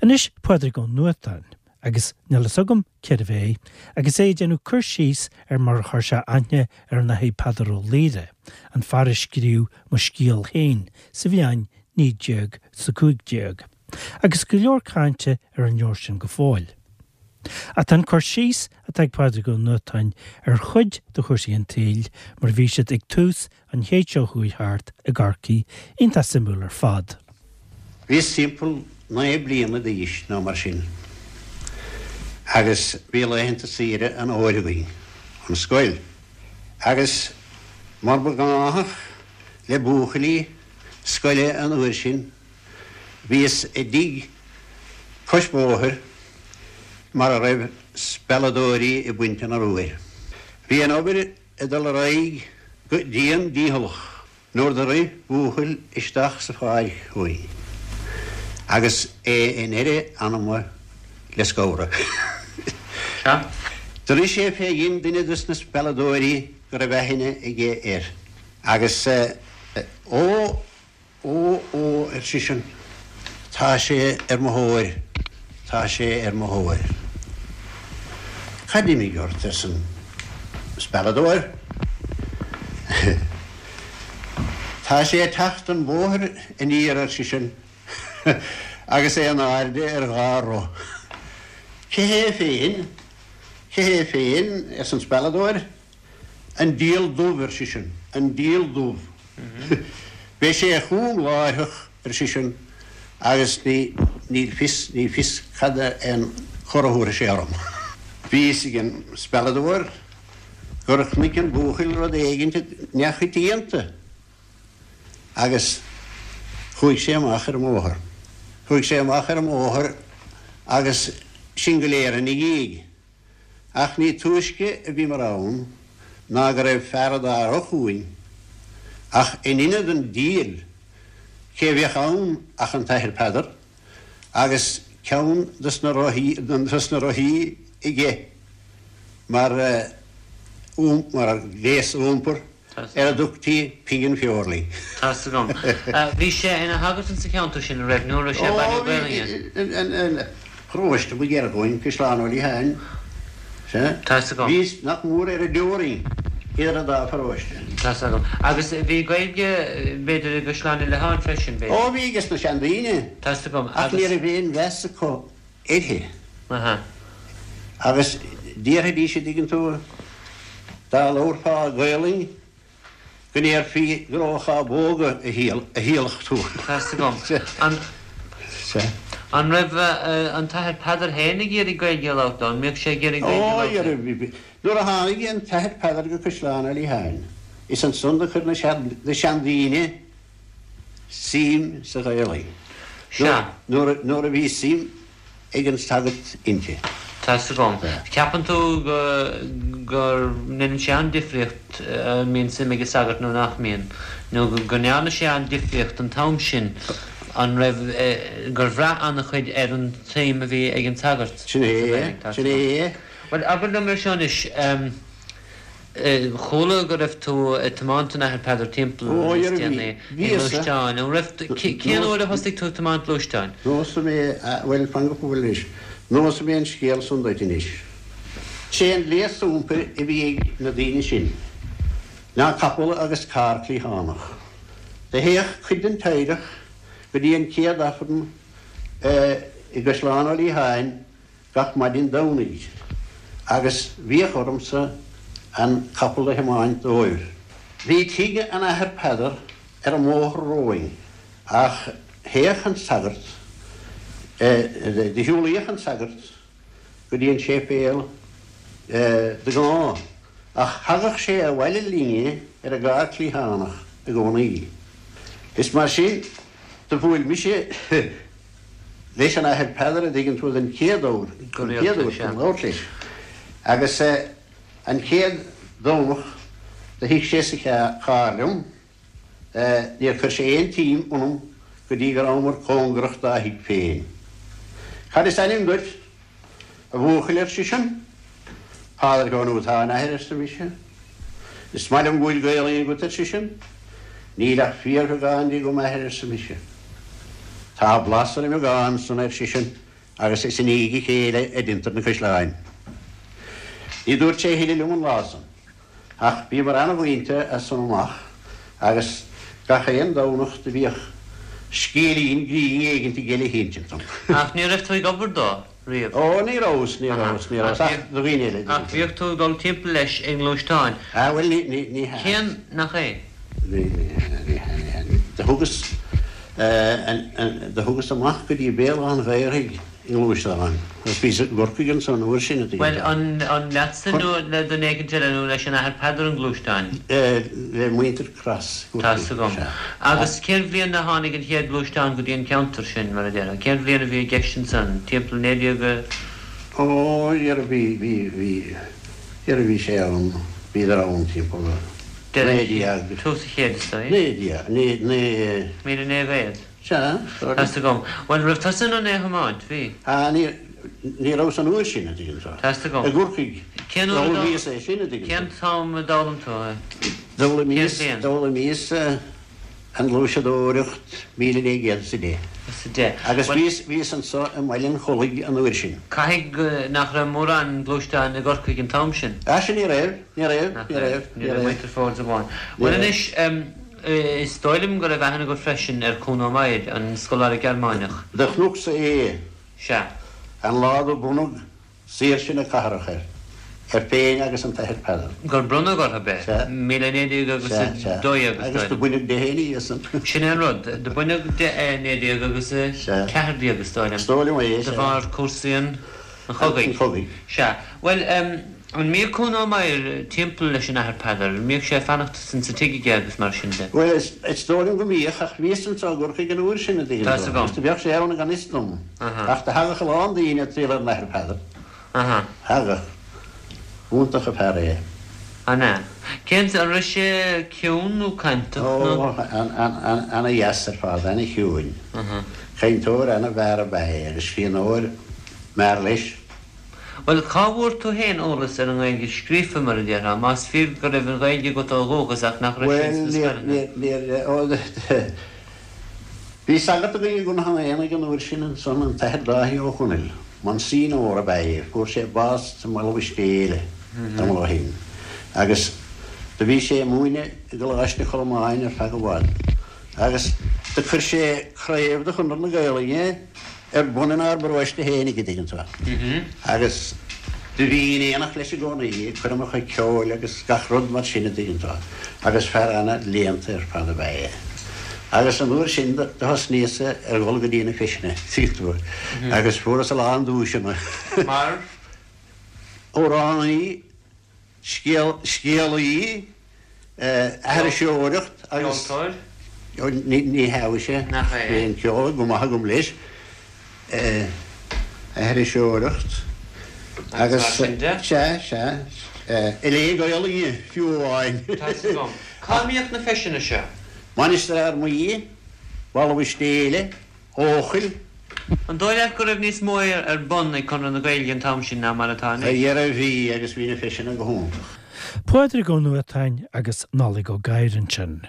Anois Pádraig Ó Nuadháin, agus níl fhios agam cérbh é, agus é ag déanamh cur síos ar mar a chuir sé aithne ar an Athair Peadar Ó Laoghaire, an fear a scríobh Mo Scéal Féin sa bhliain 1915, agus go leor cainte ar an leabhar sin go fóill. Ach tá an cur síos atá ag Pádraig Ó Nuadháin ar chuid de chúrsaí an tsaoil mar a bhí siad ag tús an chéid seo chuaigh thart i gCorcaigh iontach suimiúil ar fad. Bhíos timpeall 9 bliana d'aois nó mar sin agus bhí laethanta saoire an fhómhair againn ón scoil agus mar ba ghnáthach le buachaillí scoile an uair sin bhíos i dtigh cois bóthair mar a raibh spealadóirí ag baint an arbhair. Bhí an obair ag dul ar aghaidh go dian dícheallach nuair do rith buachaill isteach sa pháirc chugainn agus é in eire anama le scamhradh. Sea. Do rith sé fé dhein duine dos na spealadóirí go raibh aithne aige air agus Ó! Ó, ó, ar seisean, tá sé ar mo thóir, tá sé ar mo thóir. Cad d'imigh ort? arsa an spealadóir. Tá sé ag teacht an bóthar aniar, ar seisean, agus é in airde ar dhá roth. Cé hé féin? Cé hé féin? arsa an spealadóir. An diabhal dubh, ar seisean, an diabhal dubh. Beidh sé chugam láithreach, ar seisean, agus ní, níl fios, ní fios cad é an cor a thabharfaidh sé orm. Bhí fhios ag an spealadóir gur chonaic an buachaill rud éigint neamhchoitianta agus chuaigh sé amach ar an mbóthar. Chuaigh sé amach ar an mbóthar agus sinn go léir ina dhiaidh. Ach ní túisce a bhíomar ann ná go raibh fear a dá roth chugainn, ach in ionad an diabhail, cé a bheadh ann ach an tAthair Peadar, agus ceann dos na dos na rothaí aige mar mar ghléas iompair. ar a dtugtaí pingin bheurlaí. Tá's agam. Bhí sé ina shagart insa cheantar sin, an raibh, nó an raibh sé ag bailiú Gaelainne? Ó, bhí, an paróiste ba ghiorra dhúinn, Caisleán Ó Liatháin, sea. Tá's agam. Bhíos nach mór ar an dteorainn idir an dá pharóiste. Tá's agam. Agus bhí Gaeilge, b'fhéidir, i gCaisleán Uí Liatháin freisin, b'fhéidir? Ó, bhí ages na seandaoine. Tá's agam. Ach ní raibh aon mheas acu uirthi. Aha. Agus déarfaidís, an dtuigeann tú, dá labharfá Gaolainn go ndéarfaí gur ó chábóga a thíolaic tú. Tá's agam. An, an raibh an tAthair Peadar féin ag iarraidh Gaeilge a labhairt leo? An mbíodh sé ag iarraidh Gaeilge a labhairt leo? Ó, nuair a tháinig an tAthair Peadar go Caisleán Uí Liatháin, is ansan do chuir na seandaoine suim sa Ghaelainn. Sea. Nuair a bhí suim ag an sagart inti. Tá's agam. Ceapann tú go go ndéanann sé an-difríocht an mbíonn suim ag an sagart nó nach mbíonn? Nó go ndearna sé an-difríocht an t-am sin, an raibh, gur bhraith an-chuid ar an tsuim a bhí ag an sagart sa Ghaelainn? Sin é, sin é. Bhuel, abair liom ar seo anois, Chuala go raibh tú ag tiomáint an Athar Peadar timpeall níos déanaí i ngluaisteáin. An raibh, cén uair a thosaigh tú ag tiomáint gluaisteáin? Neosfaidh mé, bhuel, fan go fóill anois, neosfaidh mé an scéal san duit anois. Sé an gléas iompair a bhí ag na daoine sin ná capall agus carr cliathánach. Do théadh cuid den teaghlach go dtí an chéad Aifreann i gCaisleán Ó Liatháin gach maidin Domhnaigh agus bhíodh ormsa an capall a thiomáint dóibh. Bhí tigh an Athar Peadar ar an mbóthar romhainn ach théadh an sagart, do shiúlaíodh an sagart go dtí an séipéal de ghnáth ach thagadh sé abhaile linne ar an gcarr cliathánach i gcónaí. Is mar sin do bhuail mise leis an Athair Peadar, a dtuigeann tú, den chéad uair, Go den chéad rialta, uair sea. chun labhairt leis. Agus an chéad Domhnach do shuigh sé sa charr liom, níor chuir sé aon tsuim ionam go dtí go rabhamar cóngarach dá thigh féin. Cad is ainm duit, A bhuachaill, ar seisean. Pádraig Ó Nuadháin, a athair, arsa mise. Is maith liom go bhfuil Gaolainn agat, ar seisean. Níl ach fíorbheagán di agam, a athair, arsa mise. Tá blas ar an mbeagán san, ar seisean. Agus is i ndiaidh a chéile a deintear na caisleáin. Ní dúirt sé a thuilleadh liom an lá san. Ach bhíomar ana-mhuinte as san amach agus gach aon Domhnach do bhíodh scéilín grinn éigint aige le hinsint dom. Ach ní raibh tú ag obair dó riamh? Ó, ní rabhas, ní rabhas, ní rabhas, ach do dhaoine eile. Ach bhíodh tú ag dul timpeall leis i ngluaisteáin. Ah, bhuel, ní, ní, ní hea. Cén, nach é? Ní, ní hea, ní hea, ní hea. Do thugas, do thugas amach go dtí Béal Átha an Ghaorthaidh i ngluaisteán agus bhíos i gCorcaigh ansan an uair sin, a dtuigeann Bhuel, an, an leatsa nó le duine éicint eile nó leis an Athair Peadar an gluaisteán? Le muintir Cross i gCorcaigh, Tá's agam. sea. Agus cén bhliain a tháinig an chéad ghluaisteán go dtí an ceantar sin, mar a déarfá? Cén bhliain a bhí i gceist ansan? Timpeall 19 a. Ó, dhera, bhí, bhí, bhí, dhera bhí sé ann, bhíodar ann timpeall 19. Tús an chéid, is dóigh. 19, naoi, 1900. Sea, sorry. Tá's agam. Bhuel, raibh tusa in ann é a thiomáint? Bhí. Ah, ní, ní rabhas an uair sin, a dtuigeann tú. Tá's agam. I gCorcaigh. Cén uair a d'fhoghlaimíos é sin, a dtuigeann tú. Cén t-am a d'fhoghlaim tú é? D'fhoghlaimíos, d'fhoghlaimíos an ghluaiseadóireacht 1910. Is a deich. Agus bhíos, bhíos anso i mBaile an Chollaigh an uair sin. Caithfidh nach raibh mórán gluaisteán i gCorcaigh an t-am sin? Ah, sin ní raibh, ní raibh, ní raibh, ní raibh. Muintir Fords amháin. Bhuel anois, is dóigh liom go raibh aithne agat freisin ar Kuno Meyer, an scoláire Gearmáineach. Do chonacsa é. Sea. An lá do bronnadh Saoirse na cathrach air, air féin agus an tAthair Peadar. Gur bronnadh orthu é. Sea. 1912 agus Sea, sea. is Agus do baineadh de é ina dhiaidh san. Sin é an rud. Do baineadh de é 19 agus a Sea. 14 is dóigh liom. Is dóigh liom é, De sea. bharr cúrsaí an chogaidh. An chogaidh. Sea. Bhuel, an mbíodh Kuno Meyer timpeall leis an Athair Peadar? An mbíodh sé ag fanacht sa tigh aige agus mar sin de? Bhuel, is dóigh liom go mbíodh, ach bhíos anso i gCorcaigh an uair sin, a dtuigeann Tá's tú. agam. Agus do bheadh sé ann gan fhios dom. Aha. Ach do thagadh a lán daoine ag triall ar an Athair Peadar. Aha. Thagadh. B'iontach an fear é. An ea? Cén, an raibh sé ciúin nó cainteach nó? Ó, ana-dheas ar fad, ana-chiúin. Aha. Cainteoir ana-mhear ab ea é agus scríbhneoir mear leis. Bhuel, cá bhfuair tú féin eolas ar an nGaeilge scríofa, mar a déarfá, más fíor go raibh an Ghaeilge agat ó dhúchas ach nach raibh sí ins na scoileanna? Bhuel, níor, níor, ó, bhí sagart againn i gConnacht an Aonaigh an uair sin ansan, an tAthair Dáithí Ó Conaill, Monsignor ab ea é, fuair sé bás sa mBaile Mhistéala tamall ó shin, agus do bhí sé ag múineadh i gColáiste Cholmáin ar feadh i bhfad, agus do chuir sé craobh de Chonradh na Gaelainne ar bun inár bparóiste fhéinig, a dtuigeann tú. Agus do bhínn in éineacht leis i gcónaí, ag coirmeacha ceoil agus gach rud mar sin, a dtuigeann tú. Agus fear ana-léannta ar fad ab ea é. Agus an uair sin do thosnaíos-sa ar dhul go dtí na feiseanna, tuigeann tú, agus fuaireas a lán duaiseanna. Mar? Amhránaí. Scéal, scéalaí, aithriseoireacht agus. Ceoltóir? Ní hea mhuise. Nach é? Bhí an ceol go maith agam leis. Aithriseoireacht agus. Mar sin de? Sea, sea. Ag léamh Gaelainne fiú amháin. Tá's agam. Cá mbíodh na feiseanna seo? Mainistir Fhear Maí, Baile Mhistéala. Eochaill. An dóigh leat go raibh níos mó ar bun ag Conradh na Gaeilge an t-am sin ná mar atá anois? A dhera bhí, agus bhí na feiseanna go hiontach. Pádraig Ó Nuadháin agus Nollaig Ó Gadhra ansin.